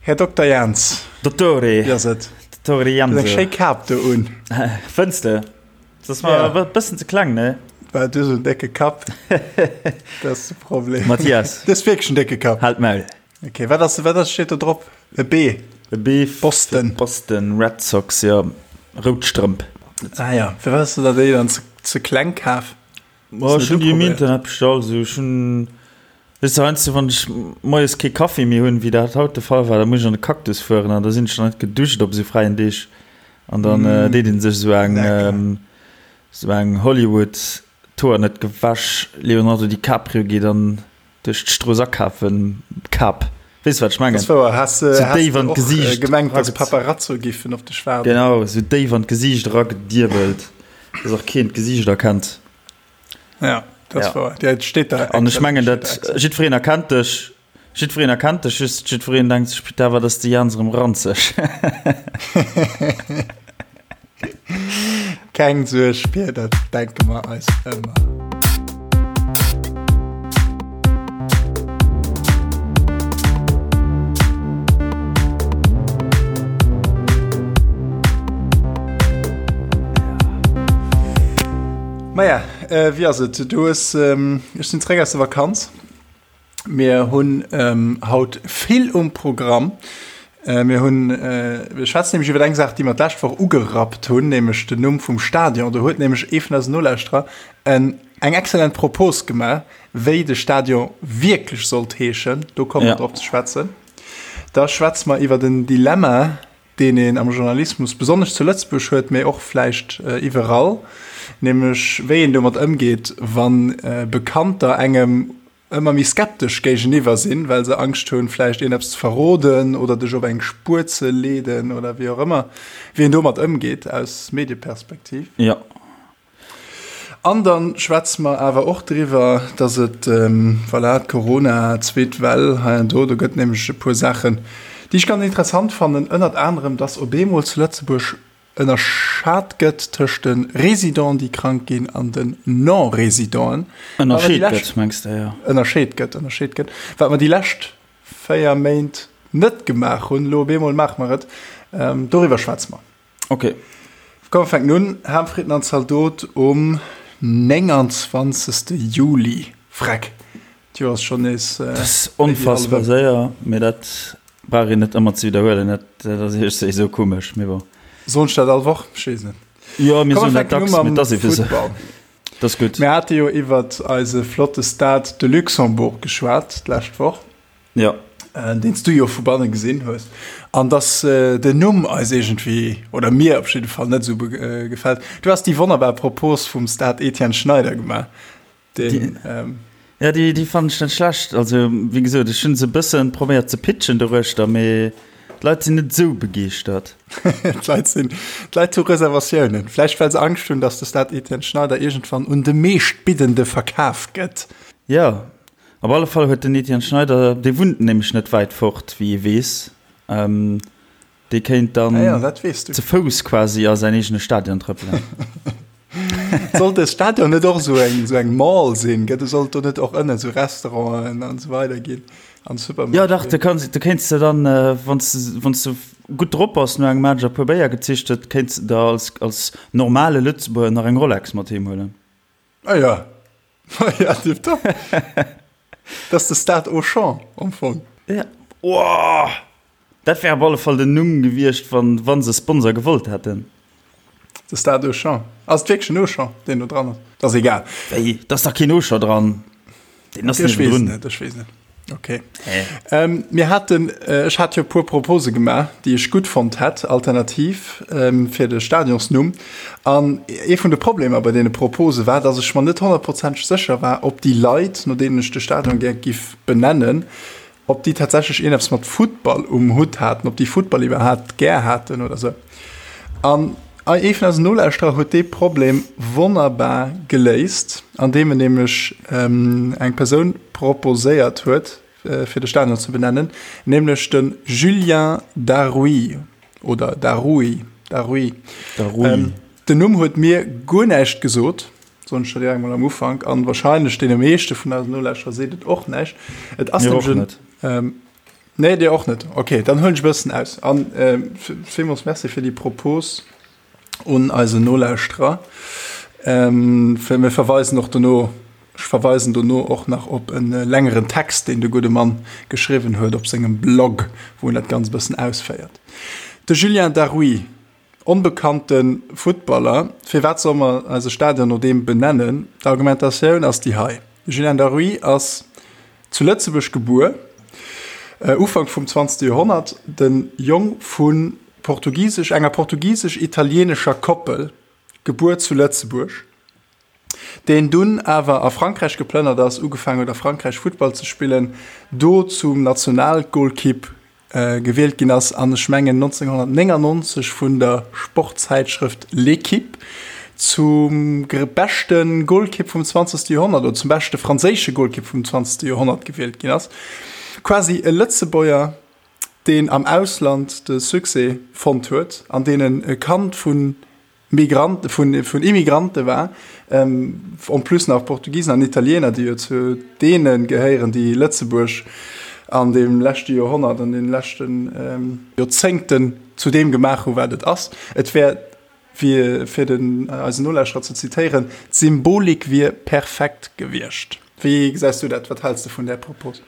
Här Dokter Jans. Dottore. Wéi ass et? Dottore Janse. Du hues eng schéi Kap do un. Fënns de? Dat ass mer e bëssen ze kleng, ne? Well du esou en décke Kapp. Dat ass de Problem. Mathias. Du hues wierklech en décke Kapp. Halt d'Maul. Ok, wat ass, wat ass, steet do drop? E B. E B. Boston. Boston Red Sox, jo. Rout Strëmp. Ah ja, firwat hues de der déi dann ze, ze kleng kaf? Ma ech hunn déi um Internet bestallt, esou ech hunn, weess de, heiansdo wann ech moies kee Kaffi méi hunn, wéi dat haut de Fall war, da muss ech an de Cactus fueren an da sinn ech nach net geduscht op esou fräien Deeg an dann deet een sech esou eng, esou eng Hollywood, d'Hoer net gewäsch, Leonardo DiCaprio geet an duerch d'Strooss akafen, Kap, weess wat ech mengen? Dat ass wouer, has de déif an d'Gesiicht gemengt, dass Paparazzo giffen op dech waarden? Genau, esou déif an d'Gesiicht eragediebelt, dass och keen d'Gesiicht erkennt. Ja, dat ass wouer. Ja, et steet da. An ech mengen, dat jiddwereen erkennt dech, jiddwereen erkennt dech, just jiddwereen denkt sech, Putain, wat ass de Jans erëm ranzeg. Keng Suerg, Pir, dat denke mer eis ëmmer. Maja, wéi ass et? Du hues, ech sinn zeréck aus der Vakanz. Mir hunn haut vill um Programm. Mir hunn, mir schwätzen nämlech iwwer eng Saach, déi mer d'lescht Woch ugerappt hunn, nämlech den Numm vum Stadion. Do huet nämlech ee vun eisen Nolauschterer en, eng exzellent Propos gemaach, wéi de Stadion wierklech sollt heeschen. Do komme mer drop ze schwätzen. Da schwätze mer iwwer en Dilemma, deen een am Journalismus besonnesch zu Lëtzebuerg huet, mee och vläicht iwwerall, nämlech wéi een domat ëmgeet, wa Bekannter engem ëmmer méi skeptesch géigeniwwer sinn, well se Angscht hunn, vläicht een eppes ze verroden oder dech op eng Spuer ze leeden oder wéi och ëmmer, wéi een domat ëmgeet aus Medieperspektiv. Jo. An dann schwätze mer awer och driwwer, dass et, voilà, d'Corona, zweet Well hei an do, do gëtt nämlech e puer Saachen, déi ech ganz interessant fannen, ënnert anerem, dass op eemol zu Lëtzebuerg ënnerschat gëtt tëscht de Résidenten, déi krank ginn, an den Non-Résidenten. Ënnerscheet gëtt, mengs de, jo. Ënnerscheet gëtt, ënnerscheet gëtt. Wat mer déi lescht 4 Méint net gemaach hunn, elo op eemol maache mer et. Doriwwer schwätze mer. Ok. Komm mer fänken un. Ham, Fritten an Zaldot um 29. Juli. Freck, d'Joer ass schonn nees. Dat ass onfassbar séier, mee dat brauch een net ëmmer ze widderhuelen. Dat ass iergendwéi esou komesch, mee bon. Soen ech dat all Woch? Ech weess net. Jo, mir soen dat dacks, mee et ass eebe esou. Dat ass gutt. Mir hate jo iwwert eise flotte Stade de Luxembourg geschwat d'lescht Woch. Ja. Deen s du jo vu banne gesinn hues. An dass den Numm eis iergendwéi, oder mir op jidde Fall, net esou gefält. Du has déi wonnerbar Propos vum Stade Etienne Schneider gemaach. Deen, ähm. Ja, déi, déi fannen ech net schlecht. Also, wéi gesot, ech hunn se e bëssen probéiert ze pitchen doruechter, mee d'Leit sinn net esou begeeschtert. D'Leit sinn, d'Leit hu Reservatiounen. Vläicht well se Angscht hunn, dass de Stade Etienne Schneider iergendwann un de Meeschtbiddende verkaf gëtt. Jo, Op alle Fall huet den Etienne Schneider, dee wunnt nämlech net wäit fort, wéi ee weess, dee kéint dann Ah ja, dat weess du. ze Fouss quasi a säin eegene Stadion trëppelen. Sollt de Stadion net och esou eng, esou eng Mall sinn? Gëtt, sollt do net och ënnen esou Restauranten an esou weider ginn an Supermarchéen? Jo dach, du kanns, du kéints de dann, wann s de, wann s de gutt drop bass, no engem Match a puer Béier gezicht huet, kéints de der als, als normale Lëtzebuerger nach eng Rolex mat heem huelen. Ah ja, ah ja, tipptopp. Dat ass de Stade Auchan am Fong. Ja. Oh! Dat wär op alle Fall den Numm gewiescht, wann, wann se Sponsor gewollt hätten. De Stade Auchan. Ass et wierklech en Auchan, deen do dran ass? Dat ass egal. Wéi? Da ass dach keen Auchan dran. Deen ass Ech weess net, ech weess net. Okay. Ähm, mir haten, äh, ech hat jo puer Propose gemaach, déi ech gutt fonnt hätt, alternativ ähm, fir de Stadionsnumm. An ee vun de Problemer bei deene Propose war, dass ech mer net honnertprozenteg sécher war, ob déi Leit, no deenen ech de Stadion gär giff benennen, ob déi tatsächlech ierneps mat Futtball um Hutt haten, ob déi Futtball iwwerhaapt gär haten oder sou. An ee vun eisen Nolauschterer huet dee Problem wonnerbar geléist, andeem en nämlech eng Persoun proposéiert huet, fir de Stadion ze benennen, nämlech de Julien Daroui oder Daroui, Daroui. Daroui. Den Numm huet mir guer näischt gesot, soen ech der direkt mol am Ufank, an wahrscheinlech deene meeschte vun eisen Nolauschterer seet et och näischt. Et ass Mir och nämlech net. en. Nee, dir och net. Okay, dann huelen ech e bëssen aus. An villmools Merci fir déi Propos un eisen Nolauschterer. Mir verweisen och dono, ech verweisen dono och nach op e längeren Text, deen de gudde Mann geschriwwen huet op sengem Blog, wou en dat Ganzt e bëssen ausféiert. De Julien Darrouy, onbekannte Futtballer, firwat solle mer eise Stadion no deem benennen? D'Argumentatioun ass déi hei, De Julien Darrouy ass Zu Lëtzebuerg gebuer, Ufank vum zwanzegste Joerhonnert, de Jong vu portugisesch enger portugisesch-italieenescher Koppel, gebuer zu Lëtzebuerg, deen dunn awer a Frankräich geplënnert ass, ugefaangen huet a Frankräich Futtball ze spillen, do zum Nationalgolkipp gewielt ginn ass an ech mengen 1999 vun der Sportzäitschrëft L'Équipe zum beschte Golkipp vum 20. Joerhonnert oder zum beschte franséische Golkipp vum 20. Joerhonnert gewielt ginn ass. Quasi e Lëtzebuerger, deen am Ausland de Succès fonnt huet an deen e Kand vun Migrante, vun, vun Immigrante war, en plus nach Portugisen an Italiener, déi jo zu deene gehéieren, déi Lëtzebuerg an deem leschte Joerhonnert, an deene leschte Joerzéngten zu deem gemaach hu wat et ass. Et wär, fir, fir den, eisen Nolauschterer ze zitéieren, d'Symbolik wier perfekt gewiescht. Wéi gesäis du dat? Wat häls de vun där Propos?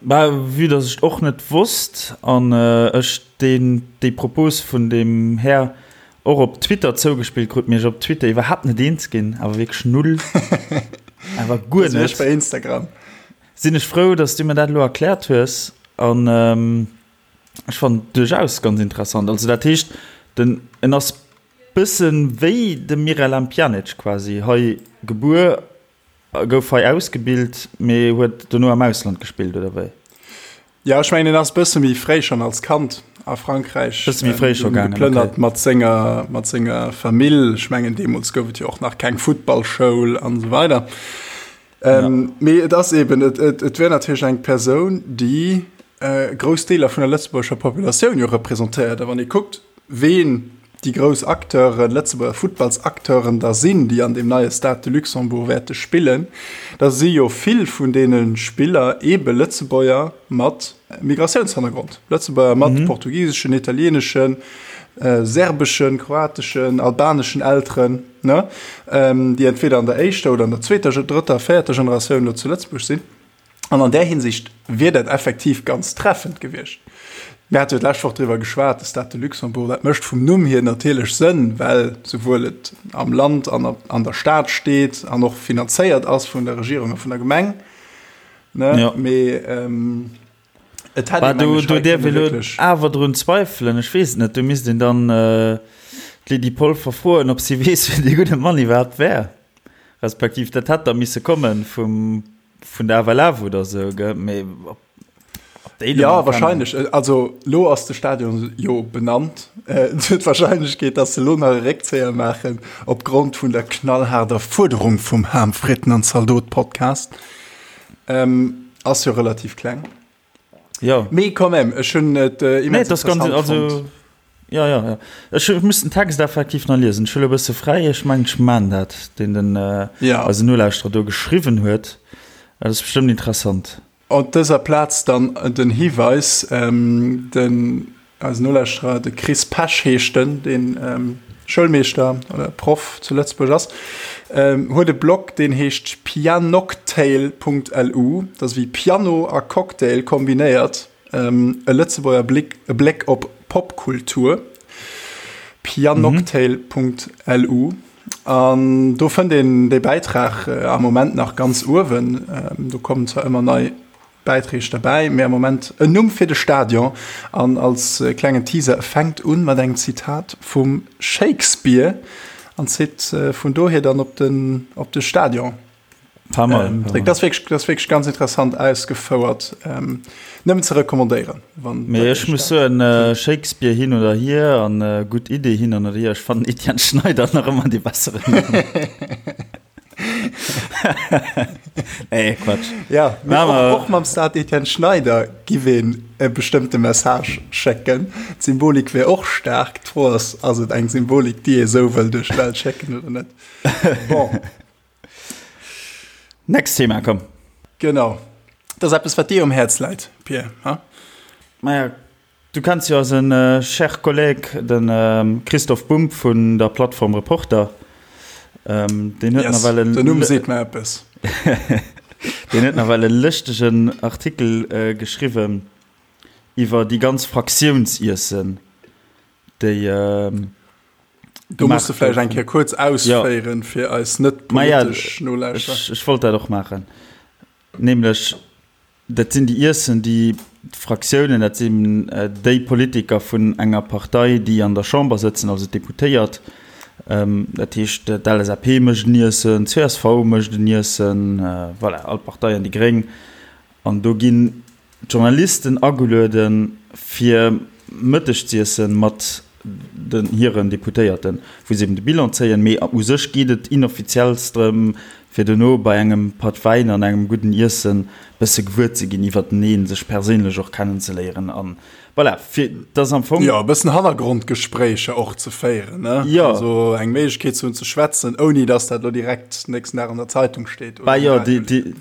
Bah, vue dass ech et och net wosst an ech deen, déi Propos vun deem Här och op Twitter zougespillt krut, mee ech op Twitter iwwerhaapt net eens ginn, awer wierklech null, awer guer net. Ech bei Instagram. Sinn ech frou, dass du mir dat elo erkläert hues an ech fannen et duerchaus ganz interessant. Also dat heescht, den, en ass bëssen wéi de Miralem Pjanic quasi, hei gebuer Gouf hei ausgebilt, mee huet dono am Ausland gespillt, oder wéi? Jo, ech mengen en ass bësse méi fréi schonn als Kand a Frankräich Bësse méi fréi scho gaangen, geplënnert okay. mat senger, mat senger Famill. Ech mengen deemools gouf et jo och nach keng Futtballschoul an esou weider. Ähm, ja. Mee et ass eben, et, et, et wär natierlech eng Persoun, déi äh, grouss Deeler vun der lëtzebuergescher Populatioun jo representéiert. A wann ee kuckt, ween déi grouss Acteuren, Lëtzebuerger Futtballsacteuren da sinn, déi an deem neie Stade de Luxembourg wäerte spillen, da si jo vill vun deene Spiller eebe Lëtzebuerger mat Migratiounshannergrond, Lëtzebuerger mat portugiseschen, italieeneschen, serbeschen, kroateschen, albaneschen Elteren, ne, déi entweder an der éischter oder an der zweeter, drëtter, véierter Generatioun elo zu Lëtzebuerg sinn. An an där Hinsicht wier dat effektiv ganz treffend gewiescht. Mir hate jo d'lescht Woch driwwer geschwat, de Stade de Luxembourg, dat mécht vum Numm hier natierlech Sënn, well souwuel et am Land an an der Stad steet an och finanzéiert ass vun der Regierung a vun der Gemeng, ne? Ja. Mee et hätt Bah, ee meng do, ech do hei däerf kënne ee lo wierklech. awer drun zweifelen. Ech weess et net, do misst een dann d'Lydie Polfer froen, ob si weess, wien dee gudde Mann iwwerhaapt wär. Respektiv dat hätt da misse komme vum, vun der FLF oder sou, gell? Mee ob, ob déi Ja, wahrscheinlech. Also lo ass de Stadion jo benannt. Et huet d'Wahrscheinlechkeet, datt se lo nach e Réckzéier maachen opgrond vun der knallhaarder Fuerderung vum Ham, Fritten an Zaldot Podcast, ass jo relativ kleng. Ja. Mee quand même, ech hunn et äh, immens nee, das ganz, also, Ja, ja, ja. Ech muss den Text effektiv nach liesen. Ech hunn e bësse fräi. Ech mengen, ech man dat, deen den äh, ja. eisen Nolauschterer do geschriwwen huet. Dat ass bestëmmt interessant. Op dëser Plaz dann den Hiweis, ähm, den Eisen Nolauschterer, de Chris Pesch heescht en, deen Schoulmeeschter oder Proff zu Lëtzebuerg ass, huet e Blog, deen heescht pianocktail.lu. Dat ass wéi Piano a Cocktail kombinéiert, e Lëtzebuerger Blick, e Bléck op Popkultur. Pianocktail.lu. An do fënnt een dee Bäitrag am Moment nach ganz uewen. Do kommen zwar ëmmer nei Bäitreeg derbäi, mee am Moment en Numm fir de Stadion. An als klengen Teaser, e fänkt un mat engem Zitat vum Shakespeare an zitt vun dohier dann op den, op de Stadion. Pas mal, Ähm, pas mal. Dat ass wierklech, dat ass wierklech ganz interessant ausgefouert. Ähm, nëmmen ze recommandéieren, wann Mee dat ech muss soen, äh, Shakespeare hin oder hier an äh, gutt Idee hin oder hier, ech fannen Etienne Schneider nach ëmmer dee besseren Numm. Nee, Quatsch. Ja, mee och, och mam Stade Etienne Schneider giff een e bestëmmte Message schécken. D'Symbolik wär och staark. D'Fro ass, ass et eng Symbolik, déi ee sou wëll duerch d'Welt schécken oder net? Bon. Next Thema, komm. Genau. Dat ass eppes, wat dir um Häerz läit, Pir, ha? Maja, du kenns jo eise cher Collègue, de Christoph Bumb vun der Plattform Reporter. Deen huet nawell en. Den Numm seet mer eppes. Deen huet nawell e lëschtegen Artikel geschriwwen iwwer déi ganz Fraktiounsiessen, déi. Do muss de vläicht eng Kéier kuerz ausféieren, fir eis net politesch Nolauschterer. Ech wollt dat och maachen. Nämlech, dat sinn déi Iessen, déi d'Fraktiounen, dat sinn déi Politiker vun enger Partei, déi an der Chamber sëtzen, also d'Deputéiert, dat heescht d'LSAP mécht en Iessen, d'CSV mécht en Iessen, voilà, all d'Parteien, déi Gréng. An do ginn d'Journalisten agelueden, fir Mëtteg z'iessen mat den hiren Deputéierten, wou se eben de Bilan zéien. Mee u sech geet et inoffiziells drëm, fir dono bei engem Patt Wäin an engem gudden Iessen bësse gewuer ze ginn iwwerteneen, sech perséinlech och kennenzeléieren an voilà, fir dass am Fong. Jo, e bëssen Hannergrondgespréicher och ze féieren, ne? Jo. Also eng Méiglechkeet ze hunn ze schwätzen, ouni dass dat elo direkt nächsten Dag an der Zeitung steet oder um Radio. Bah jo,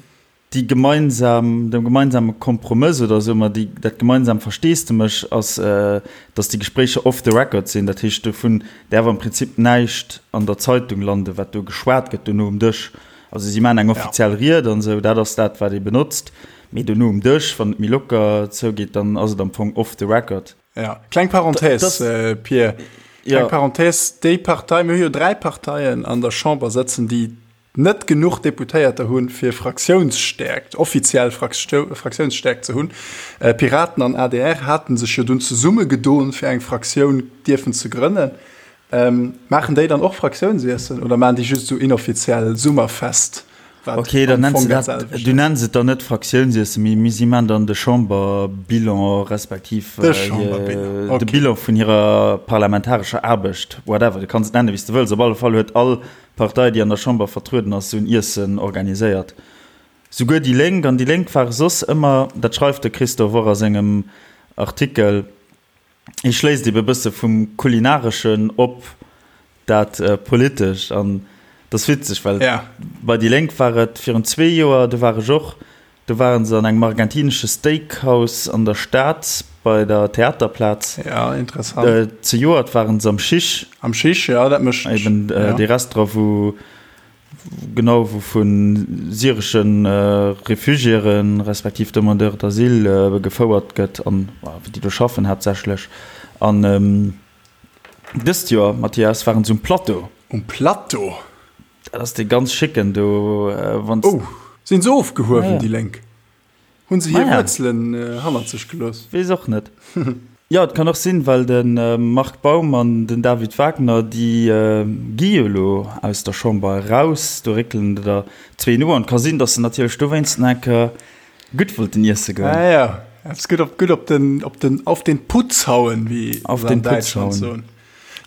déi gemeinsam, de gemeinsame Kompromëss oder soe mer déi, dat gemeinsam Versteesdemech ass, datt déi Gespréicher off the record sinn. Dat heescht, dovun däerf am Prinzip näischt an der Zeitung landen, wat do geschwat gëtt dono um Dësch. Also si maachen eng offiziell Ried an esou, dat ass dat, wat ee benotzt, mee dono um Dësch, wann et méi locker zougeet, dann ass et am Fong off the record. Ja, kleng Parenthèse, Pir, kleng Parenthèse, déi Partei, mir hu jo 3 Parteien an der Chamber sëtzen, déi net genuch Deputéierter hunn, fir Fraktiounsstäerkt, offiziell Fraktiounsstäerkt ze hunn. Piraten an adr hate sech jo dunn zesummegedoen, fir eng Fraktioun dierfen ze grënnen. Maachen déi dann och Fraktiounsiessen oder maachen déi just esou inoffiziell Summerfest, wat Ok, dann am nenns Fong de dat dat, selwecht du ass? nenns et dann net Fraktiounsiessen, mee mee si maachen dann de Chamberbilan respektiv De Chamberbilan, de ok. Bilan vun hirer parlamentarescher Aarbecht, whatever, du kanns et nennen, wéi s de wëlls. Op alle Fall huet all Partei, déi an der Chamber vertrueden ass, esou en Iessen organiséiert. Souguer déi Lénk, an déi Lénk ware soss ëmmer, dat schreift de Christophe och a sengem Artikel, hie schléisst ebe bësse vum Kulinareschen op dat Politescht. An dat ass witzeg, well bei déi Lénk war et virun zwee Joer, do war ech och, Do waren se an engem argentinesche Steakhouse an der Stad bei der Theaterplaz. Ja, interessant. Zejoert waren se am Chiche. Am Chiche, ja, dat mécht. Eben dee Restaurant, wou genau, wou vu syresche Refugiéren, respektiv Demandeurs d'asile gefouert gëtt an déi do schaffen haaptsächlech. An dëst Joer, Mathias, waren se um Plateau. Um Plateau? Dat ass dee ganz schicken do. Wann oh, sinn se ofgehuewen, ah, ja. déi Lénk? Hunn se hir ah, ja. Wuerzelen äh, hannert sech gelooss? Weess och net. Jo, et kann och sinn, well de äh, Marc Baum an den David Wagner, déi äh, gi jo elo aus der Chamber eraus, do réckelen der zwee no an et ka sinn, datt se natierlech dowéinst nach eng Kéier gutt wollten iesse goen. Ah, ja, eppes gutt op, gutt op den, op den, auf den Putz hauen, wéi auf den Putz hauen.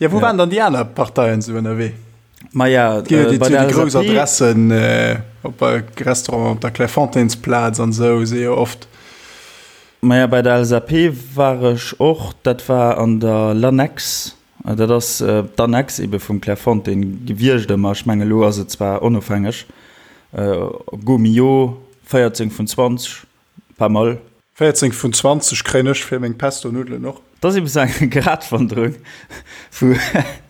Ja, wou ja. waren dann déi aner Parteien sou ënnerwee? Maja, äh, bei der grouss Adressen äh, op bei Restaurant op der Clairefontainesplaz an sou si jo oft. Maja, bei der LSAP war ech och, dat war an der L'Annexe. Äh, dat ass äh, d'Annexe ebe vum Clairefontaine gewiescht ëmmer. Ech menge lo ass et zwar onofhängeg. Äh, Gault-Millau, 14 vun 20. Pas mal. 14 vun 20 kréien ech fir meng Pesto-Nuddelen och. Dat ass eben sou eng Gratwanderung vu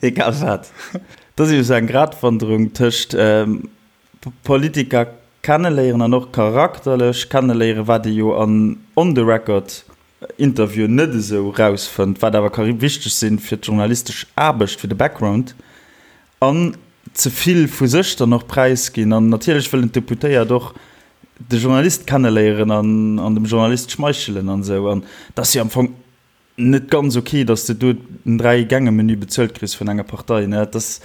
egal wat. Dat ass eben sou eng Gratwanderung tëscht Politiker kenneléieren an och charakterlech kenneléieren, wat ee jo an on the record Interviewen net esou rausfënnt, wat awer ka wichteg sinn fir d'journalistesch Aarbecht, fir de Background. An ze vill vu sech dann och präisginn. An natierlech wëllen d'Deputéiert och de Journalist kenneléieren an an dem Journalist schmeichelen an esou. An et ass jo am Fong net ganz ok, datt s de do en Dräi-Gänge-Menü bezuelt kriss vun enger Partei, ne? Et ass,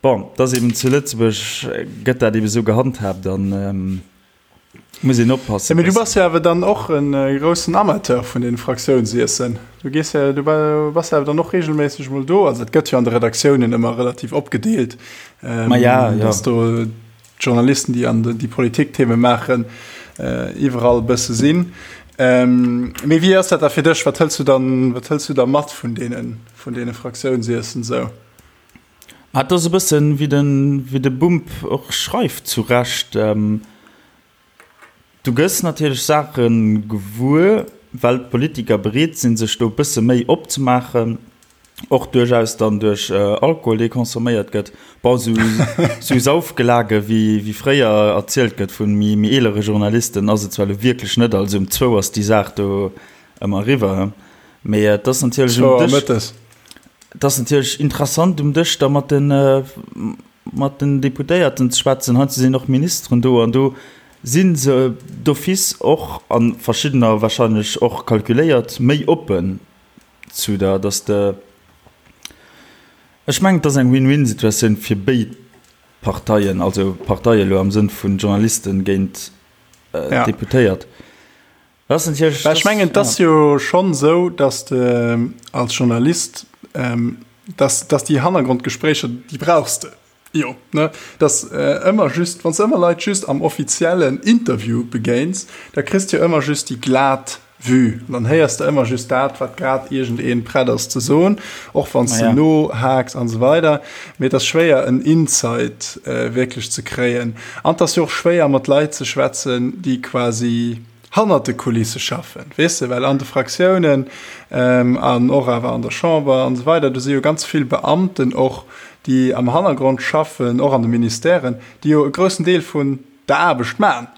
bon, et ass eben zu Lëtzebuerg gëtt dat eben esou gehandhaabt an. Muss een oppassen. Mee du bass jo awer dann och e groussen Amateur vun den Fraktiounsiessen. Du gees jo, du bass jo awer dann och regelméisseg mol do. Also et gëtt jo an de Redaktiounen ëmmer relativ opgedeelt, Ma ja, ja. dass do d'Journalisten, déi an déi Politiktheme maachen, iwwerall e bësse sinn. Mee wéi ass dat da fir dech? Wat hëls du dann, wat hëls du da mat vun deene, vun deene Fraktiounsiessen esou? Ma et ass e bëssen, wéi de, wéi de Bumb och schreift, zu Recht, Du gëss natierlech Saache gewuer. well d'Politiker bereet sinn, sech do e bësse méi opzemaachen, och duerchaus dann duerch Alkohol, dee consomméiert gëtt. Bon, esou, esou Saufgelage wéi, wéi fréier erzielt gëtt vu méi, méi eelere Journalisten, ass et zwar elo wierklech net. Also um zwou ass déi Saach do ëmmer eriwwer, mee et ass natierlech um Dësch, et ass natierlech interessant um Dësch da mat den, mat den Deputéierten ze schwätzen. Heiansdo sinn och Ministeren do an do si se d'office och, a verschiddener wahrscheinlech och kalkuléiert, méi oppen zu der, dass de, ech mengen, et ass eng Win-win-Situatioun fir béid Parteien, also Parteie elo am Sënn vun Journalisten géint Deputéiert. Dat ass natierlech. Well ech mengen, et ass jo schonn esou, dass de als Journalist, dass, dass déi Hannergrondgespréicher, déi brauchs de jo, ne? Dass ëmmer just, wann s de ëmmer Leit just am offiziellen Interview begéins, da kriss de jo ëmmer just déi glat Vue. An dann héiers de ëmmer just dat, wat grad iergendee prett ass ze soen, och wann s de nohaaks an esou weider. Mee et ass schwéier, en Insight wierklech ze kréien. An et ass jo och schwéier, mat Leit ze schwätzen, déi quasi hannert de Kulisse schaffen, weess de, well an de Fraktiounen an och awer an der Chamber an esou weider, do si jo ganz vill Beamten och, déi am Hannergrond schaffen, och an de Ministèren, déi jo e groussen Deel vun der Aarbecht maachen,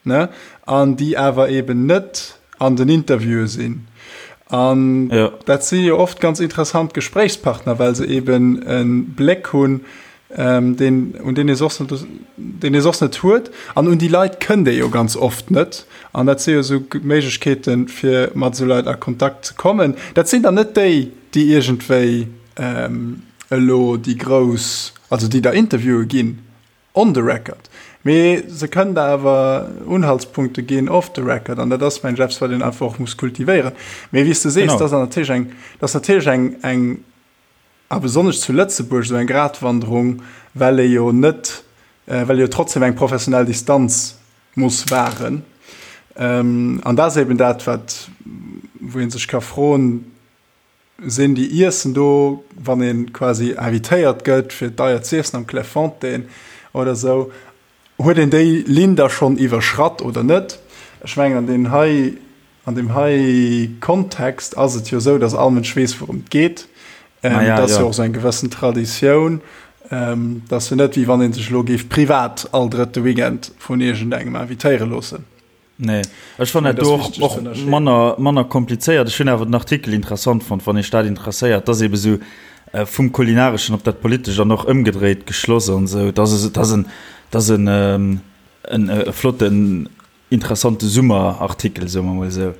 ne, an déi awer eeben net an den Interviewe sinn. An dat si jo oft ganz interessant Gespréichspartner, well se eeben e Bléck hunn, deen, un deen ee soss net, deen ee soss net huet. An un déi Leit kënnt ee jo ganz oft net. An dat si jo esou Méiglechkeeten, fir mat esou Leit a Kontakt ze kommen. Dat sinn dann net déi, déi iergendwéi elo déi grouss, also déi da Interviewe ginn on the record, mee se kënnen der awer Unhaltspunkte ginn off the record. An dat ass, mengen ech, eppes, wat een einfach och muss kultivéieren. Mee wéi s de sees, dat ass natierlech eng, dat ass natierlech eng, eng, A besonnesch zu Lëtzebuerg esou eng Gratwanderung, well ee jo net, well ee jo trotzdem eng professionell Distanz muss wahren. An dat ass eben dat, wat, wou ee sech ka froen, Sinn déi Iessen do, wann ee quasi invitéiert gëtt fir deier z'iessen am Clairefontaine oder esou, Huet een déi Linn da schonn iwwerschratt oder net? Ech mengen, an deem hei, an deem hei Kontext ass et jo esou, datt all Mënsch weess, wourëm et geet. Et ass jo och esou eng gewëssen Traditioun. Et ass jo net, wéi wann ee sech elo géif privat all drëtte Weekend vun iergendengem invitéiere loossen. Nee, ech fannen dat do och, och manner, manner komplizéiert. Ech hunn awer den Artikel interessant fonnt, wann Iech dat interesséiert. Dat ass ebe sou äh, vum Kulinareschen op dat Politescht an och ëmgedréit geschloss an esou. Dat ass, dat ass en, dat ass en, ähm, en, e flotten, interessante Summerartikel, soe mer mol esou.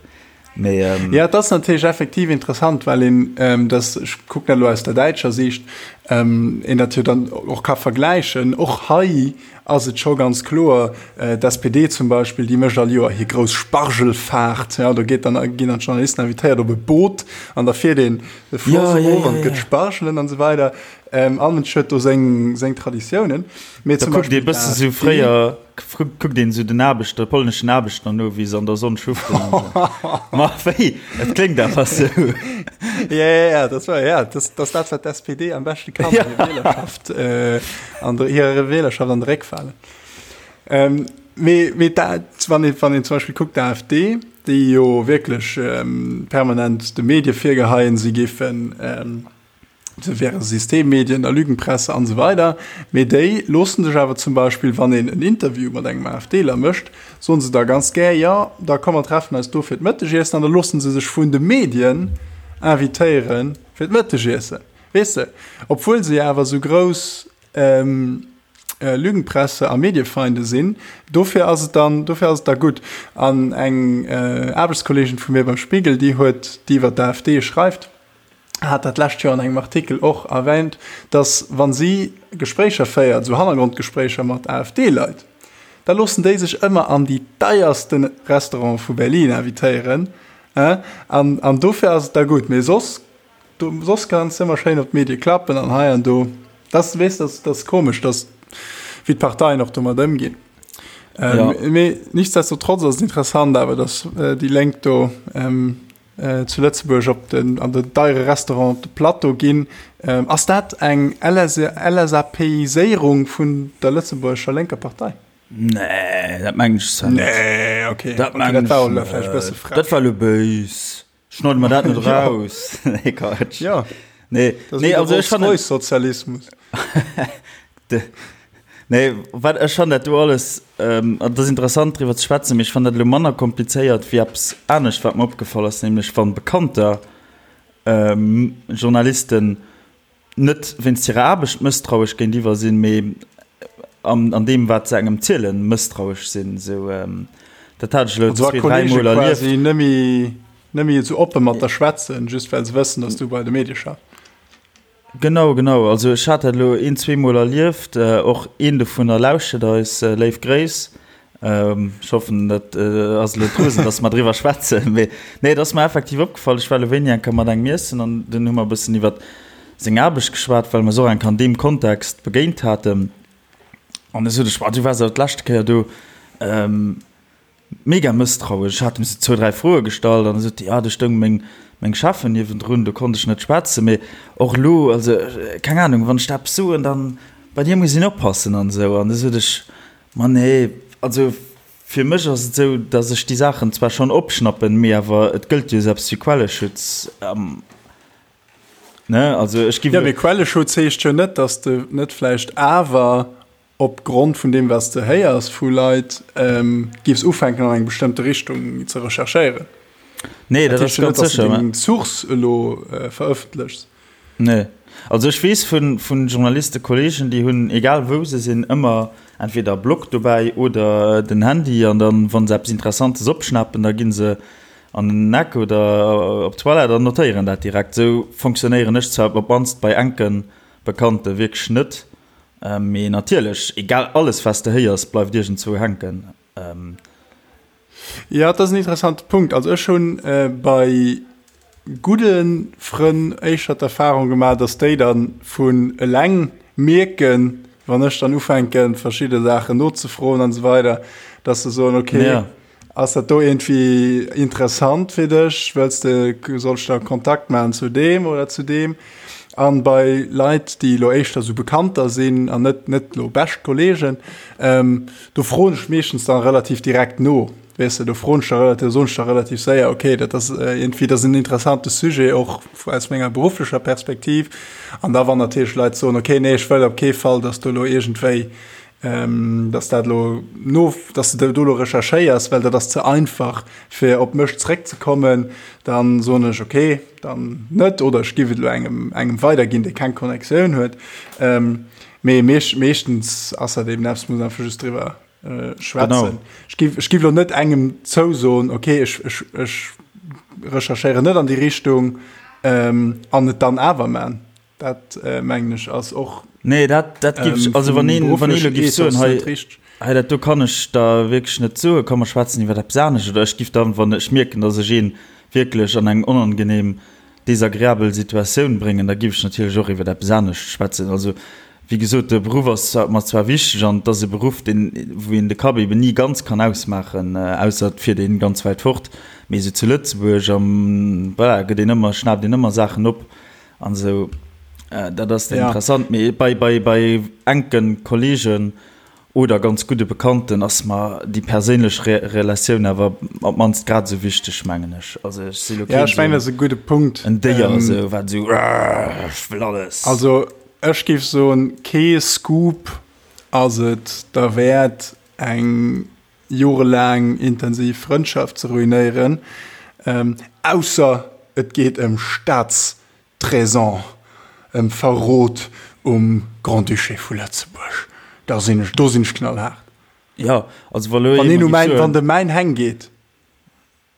Mee, ähm, Ja, et ass natierlech effektiv interessant, well een ähm, das, ech kucken dat elo aus der däitscher Siicht, ähm, een dat jo dann och ka vergläichen. Och hei ass et scho ganz kloer, äh, d'SPD zum Beispill, déi mécht all Joer hir grouss Spargelfahrt. Ja, do geet dann, ginn dann d'Journalisten invitéiert op e Boot an da fiert een de Floss ja, ja, erof ja, an et gëtt ja. Spargelen an esou weider. Ähm, all Mënsch huet do seng, seng Traditiounen. Mee Da zum kuckt ee Beispill bësse sou d'AfD, fréier, kuckt een sou den Aarbechter, polneschen Aarbechter no, wéi se an der Sonn schuften an sou. Ma wéi? Et kléngt awer sou. Ja, ja, ja, das war, ja, das, das dat, wat d'SPD am beschte kann, ja. hir Wählerschaft, äh, an der, hirer Wählerschaft an de Réck falen. Ähm, mee, mee dat, wann een, wann een zum Beispill kuckt, d'AfD, déi jo wierklech ähm, permanent de Medie virgeheien, si géifen, ähm, Se wäre Systemmedien a Lügenpresse an esou weider. Mee déi loosse sech awer zum Beispill, wann een en Interview mat engem AfDler mécht, soen se da ganz gär, jo, da komm mer treffen eis do fir d'Mëttegiessen an da loosse se sech vun de Medien invitéiere fir d'Mëttegiessen. Weess de? Obwuel se jo awer esou grouss Lügenpresse a Mediefeinde sinn. Dofir ass et dann, dofir ass et da gutt. An eng Aarbechtskolleegin vu mir beim Spiegel, déi huet, déi iwwer d'AfD schreift, hat dat lescht Joer an engem Artikel och erwähnt, dass wa si Gespréicher féiert, esou Hannergrondgespréicher mat AfD-Leit, da loossen déi sech ëmmer an déi deierste Restaurante vu Berlin invitéieren, an, an dofir ass et da gutt. Mee soss, do, soss kanns de ëmmer schéin op d'Medie klappen an hei an do. Dat, weess, dat, dat ass komesch, dass, wéi d'Parteien och domat ëmginn. Ähm, ja. Mee nichtsdestotrotz ass et interessant awer, dass äh, déi Lénk do ähm, zu Lëtzebuerg op den, an den deiere Restaurant op de Plateau ginn. Ass dat eng LSAPiséierung vun der lëtzebuergescher lénker Partei? Nee, dat mengen ech zwar net. Nee, okay. Dat okay, mengen dat war ech elo vläicht e bësse net. frech. Dat war elo béis. Schneide mer dat net raus. Nee, Quatsch. Ja. Nee, Das nee, also ech fannen. Sozialismus. Nee, wat ech fannen dat do alles, ähm, an dat ass interessant driwwer ze schwätzen, mee ech fannen dat elo manner komplizéiert wéi eppes anescht, wat mer opgefall ass, nämlech wann Bekannter, ähm, Journalisten net wéinst hirer Aarbecht mësstrauesch géintiwwer sinn, mee an, an deem, wat se engem zielen, mësstrauesch sinn. Esou, ähm, dat hat ech elo Also wa zwee, dräi Kollege Mol erlieft. quasi nëmme nëmme esou oppe mat der schwätzen, just well se wëssen, dass du bei de Medie schaffs. Genau, genau. Also ech hat dat elo een, zweemol erlieft. Och een dovunner lauschtert eis. Léif Gréiss. Ech hoffen, dat ass elo d'Rosen, datt mer driwwer schwätzen. Mee nee, et ass mer effektiv opgefall. Ech war elo wéini eng Kéier mat engem iessen an dunn hu mer e bëssen iwwer seng Aarbecht geschwat, well mer se och eng Kéier an deem Kontext begéint haten. An da sot ech, Ma du waars awer d'leschte Kéier do. Mega mësstrauesch. Ech hat em sou zwou, dräi Froe gestallt an da sot déi, ah, do stoung meng, meng Cheffen niewendrun, do konnt ech net schwätzen. Mee och elo, also keng Ahnung, wann ech der eppes soen, dann bei dir muss een oppassen an esou. An da sot ech, ma nee, also fir mech ass et esou, datt ech déi Saachen zwar schonn opschnappen, mee awer et gëllt jo esou eppes wéi Quelleschutz, ne? Also ech giff. Jo, mee Quelleschutz heescht jo net, datt s de net vläicht awer op Grond vun deem, wat s de héiers vu Leit, giffs ufänken an eng bestëmmte Richtung ze recherchéieren. Nee, dat ass ganz sécher. Dat heescht jo net, dass de deng Source elo verëffentlechs. Nee. Also ech weess vu vu Journalistekolleegen, déi hunn, egal wou se sinn, ëmmer entweder e Block dobäi oder den Handy an dann, wa se eppes Interessantes opschnappen, da gi se an den Eck oder op d'Toilette an notéieren dat direkt. Esou fonctionnéieren ech zwar op d'mannst bei enke Bekannte wierklech net. Mee natierlech, egal, alles wat s de héiers, bleift iergendzwou hänken. Jo, dat ass en interessante Punkt. Also ech hunn bei gudde Frënn éischter d'Erfahrung gemaach, datt déi da vun eleng mierken, wann ech dann ufänken, verschidde Saachen nozefroen an esou weider, datt se soen, okay, Ass dat do iergendwéi interessant fir dech? Wëlls de, soll ech da Kontakt maachen zu deem oder zu deem? An bei Leit, déi elo éischter sou Bekannter sinn an net, net elo bescht Kollegen, do froen ech meeschtens dann relativ direkt no. Weess de, do froen ech da relativ, soen ech da relativ séier, okay, dat ass iergendwéi, dat ass en interessante Sujet och aus menger berufflecher Perspektiv. An da wann natierlech Leit soen, okay, nee, ech wëll op kee Fall, dass do elo iergendwéi dass dat elo no, dass de do elo recherchéiers, well dat ass ze einfach fir op mech zréckzekommen, dann soen ech okay, dann net oder ech giff et elo engem engem weiderginn, dee keng Connectioun huet. Mee meeschtens ass dat eben eppes, muss einfach just driwwer schwätzen. Ech giff ech giff elo net engem zousoen, okay ech ech ech recherchéieren net an déi Richtung an et dann awer man. Dat mengen ech ass och. Nee, dat, dat giff ech, also wann een, wann ee lo giff soen, hei, hei dat do kann ech der wierklech net soen, komm mer schwätzen iwwer eppes anescht, oder ech giff dann, wann ech mierken, datt ech een wierklech an eng onangenehm, desagreabel Situatioun bréngen, da giff ech natierlech och iwwer eppes anescht schwätzen. Also wéi gesot, de Beruff ass mer zwar wichteg an et ass e Beruff, deen, wou een de Kapp eben ni ganz kann ausmaachen, ausser et fiert een ganz wäit fort, mee esou zu Lëtzebuerg am, voilà, gëtt een ëmmer, schnaapt een ëmmer Saachen op. An esou, dat ass dann interessant. Mee bei, bei, bei enke Kollegen oder ganz gudde Bekannten ass mer déi perséinlech Re Relatioun awer op d'mannst grad esou wichteg, mengen ech. Also ech si lo keen, ja, ech mengen, dat ass e gudde Punkt. En Déier esou, wat esou, ech wëll alles. Also ech géif soen, kee Scoop ass et derwäert, eng jorelaang intensiv Frëndschaft ze ruinéieren, ausser et geet ëm Staatstraisan, ëm Verrot um Grand-Duché vu Lëtzebuerg. Da sinn ech, do sinn ech knallhaart. Jo, also wa lo ee mer géif soen. Wann de mäin Heng geet.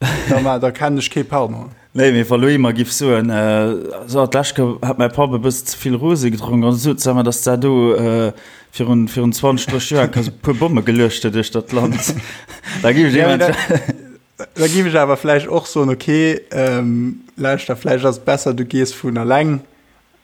Da, ma, da kennen ech kee Pardon. Nee, mee wa lo ee mer giff soen, So, d'lescht Kéier hat mäi Papp e bëssen ze vill Rosé gedronk an sot se mer, dass der do virun, virun 20, 30 Joer e puer Bomme geluecht huet duerch dat Land. Da giff ech eventuell. Da giff ech awer vläicht och soen, okay, lauschter, vläicht ass et besser, du gees vun eleng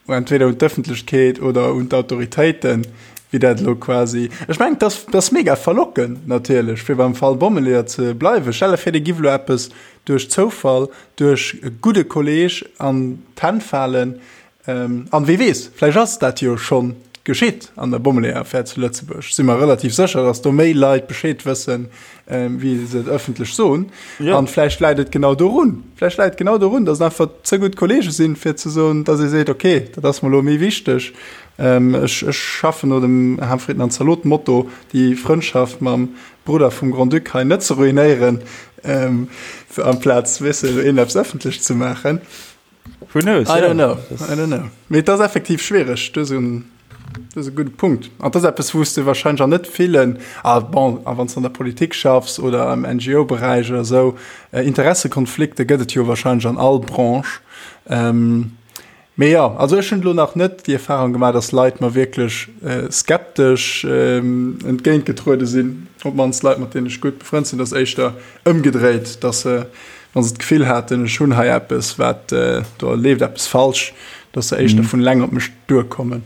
entweder un d'Ëffentlechkeet oder un d'Autoritéiten, wéi dat elo quasi. Ech mengen, dat ass, dat ass mega verlockend natierlech, fir beim Fall Bommeleeër ze bleiwen. Stell der vir, dir giff elo eppes duerch Zoufall, duerch e gudde Kolleeg an d'Hänn falen. An wie weess, vläicht ass dat jo schonn. geschitt an der Bommeleeër-Affär zu Lëtzebuerg. Si mer relativ sécher, datt do méi Leit Bescheed wëssen, wéi se et ëffentlech soen. Ja. An vläicht läit et genau dorun. Vläicht läit et genau dorun, datt et einfach ze gutt Kollege sinn, fir ze soen, datt ee seet, okay, dat ass mer elo méi wichteg. Ech, ech schaffen no dem Ham, Fritten an Zalot-Motto, déi Frëndschaft mam Brudder vum Grand-Duc hei net ze ruinéieren, amplaz, weess de, een eppes ëffentlech ze maachen. Who knows? I don't know. I don't know. Mee et ass effektiv schwiereg. Du hues en, du hues e gudde Punkt. An et ass eppes, wou s de wahrscheinlech an net villen, ah bon, a wann s de an der Politik schaffs oder am NGO-Beräich oder esou, Interessekonflikte gëtt et jo wahrscheinlech an all Branche. Mee jo, also ech hunn elo nach net déi Erfahrung gemaach, dass Leit mer wierklech skeptesch entgéintgetruede sinn, op d'mannst Leit, mat deenen ech gutt befrënnt sinn. Et ass éischter ëmgedréit, dass se, wa se d'Gefill haten, ech hunn hei eppes, wat, do leeft eppes falsch, dass se éischter vun eleng op mech duerkommen.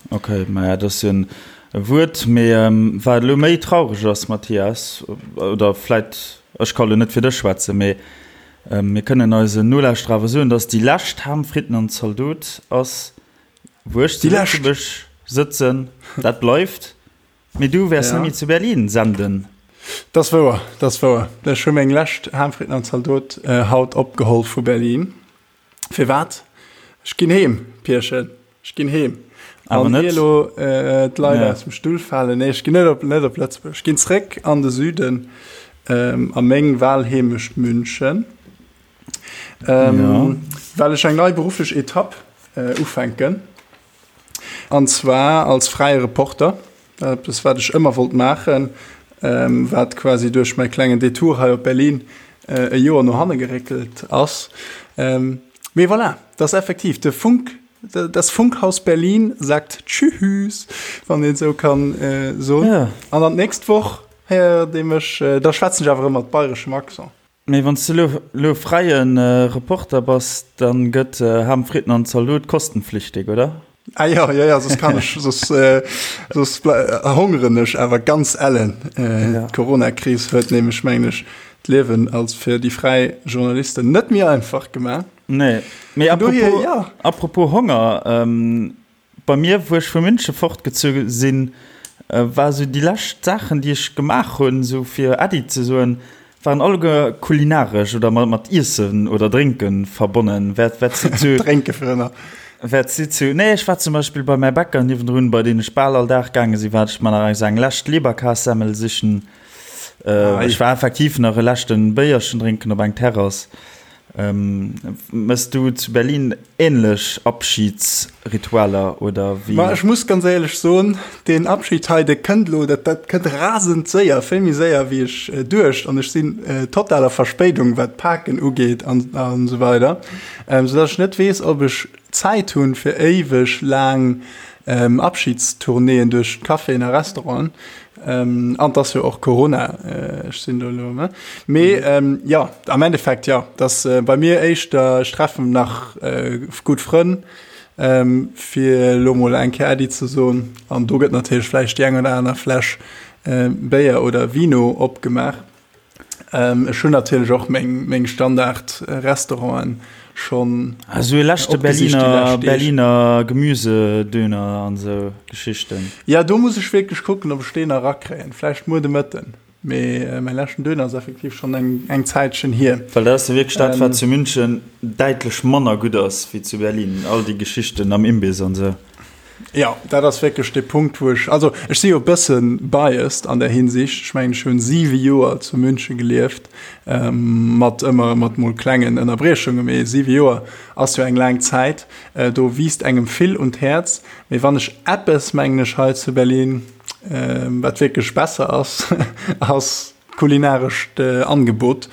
Ok, maja, dat ass jo en Wuert. Mee wat elo méi traureg ass, Mathias, oder vläit, ech ka lo net fir dech schwätzen, mee mir kënnen eisen Nolauschterer awer soen, datt déi lescht Ham, Fritten an Zaldot ass, wou ech zu Lëtzebuerg sëtzen. Dat bleift. Mee du wäers net méi zu Berlin senden. Dat ass wouer, dat ass wouer. Ech hu meng lescht Ham, Fritten an Zaldot haut opgeholl vu Berlin. Firwat? Ech ginn heem, Pierchen. Ech ginn heem. Awer net. An elo äh, d'Leit ja. aus dem Stull falen. Nee, ech ginn net op, net op Lëtzebuerg. Ech ginn zréck an de Süden, ähm, a meng Wahlheemecht München. Ähm, ja. Well ech eng nei berufflech Etapp äh, ufänken. An zwar als fräie Reporter. Eppes, wat ech ëmmer wollt maachen, wat quasi duerch mäi klengen Detour hei op Berlin e Joer no hanne geréckelt ass. Mee voilà, dat ass effektiv de Funk, das Funkhaus Berlin sagt Tschüss, wann een esou kann soen. An dann d'nächst Woch héiert ee mech, da schwätzen ech awer erëm mat bayreschem Accent. Mee wann s de lo lo fräie Reporter bass, dann gëtt Ham, Fritten an Zalot kostenpflichtig, oder? Ah jo, jo, jo, soss kann ech, soss, soss hongeren ech awer ganz ellen. D'Corona-Kris huet nämlech, mengen ech, d'Liewen als fir déi fräi Journalisten net méi einfach gemaach. Nee, mee apropos, apropos Honger, Bei mir, wou ech vu München fortgezu sinn, war esou déi lescht Saachen, déi ech gemaach hunn, esou fir Äddi ze soen, waren alleguer kulinaresch oder mat Iessen oder Drénke verbonnen. Wat, wat si zu. Drénke fir ënner. Wat si zu. Nee, ech war zum Beispill bei mäi Bäcker niewendrun, bei deen ech bal all Dag gaange sinn, war ech mer nach eng lescht Leberkassemmel sichen. Ech war effektiv nach e leschte Béierchen drénken op eng Terrass. Mëss du zu Berlin ähnlech Abschiedsritualer oder wéi? Ma ech muss ganz éierlech soen, deen Abschied hei, dee kënnt elo, dat dat kënnt rasend séier, vill méi séier wéi ech duecht an ech sinn total a Verspéidung wat d'Paken ugeet an an esou weider, soudass ech net weess, ob ech Zäit hunn fir éiweg laang Abschiedstournéeën duerch d'Caféen a Restauranten. An et ass jo och Corona, ech sinn do elo, ne? Mee jo, am Endeffekt jo, et ass bei mir éischter, ech treffen nach gutt Frënn, fir elo mol eng Kéier Äddi ze soen. An do gëtt natierlech vläicht déi eng oder aner Fläsch Béier oder Vino opgemaach. Ech hunn natierlech och meng Standard-Restauranten schonn Ah, sou e leschte opgesicht déi Berliner, lescht Deeg. Berliner Gemüsedöner an sou Geschichten. Ja, do muss ech wierklech kucken, ob ech deen nach erakréien. Vläicht muer de Mëtten. Mee mäi leschten Döner ass effektiv schonn eng, eng Zäitchen hier. Well dat ass jo wierklech dat, wat zu München däitlech manner gutt ass wéi zu Berlin, all déi Geschichten am Imbiss an sou. Jo, dat ass wierklech dee Punkt, wou ech, also ech si jo e bësse biased an där Hinsicht. Ech mengen, ech hunn siwe Joer zu München gelieft, mat ëmmer mat mol klengen Ënnerbriechunge, mee siwe Joer ass jo eng laang Zäit. Do wiisst engem vill un d'Häerz. Mee wann ech eppes, mengen ech, hei zu Berlin, wat wierklech besser ass, ass Kulinarescht Angebot.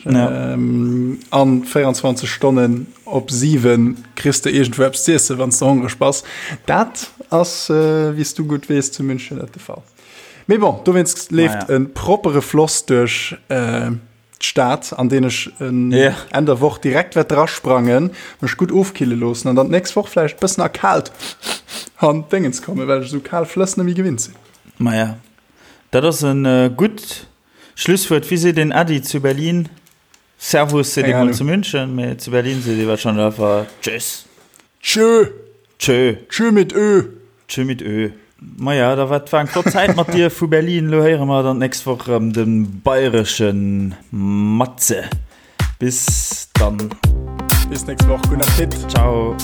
Ja. An 24 Stonnen op 7 kriss de iergendwou eppes z'iessen, wann s de hongreg bass. Dat ass, wéi s du gutt weess, zu München net de Fall. Mee bon, dowéinst leeft e proppere Floss duerch d'Stad, an deen ech Enn der Woch direkt wäert drasprangen, mech gutt ofkille loossen an dann d'nächst Woch vläicht bëssen erkaalt an d'Déngens kommen, well ech esou kal Flëss net méi gewinnt sinn. Maja, Dat ass e gutt Schlusswuert. Wéi seet een Äddi zu Berlin? Servus seet ee mol zu München, mee zu Berlin seet ee warscheinlech einfach Tschüss. Tschö. Tschö. Tschö mit Ö. Tschö mit Ö. Maja, da war war eng flott Zäit mat dir vu Berlin. Lo héiere mer dann d'nächst Woch erëm de bayresche Matze. Bis dann. Bis nächst Woch. Guten Appetit. Ciao.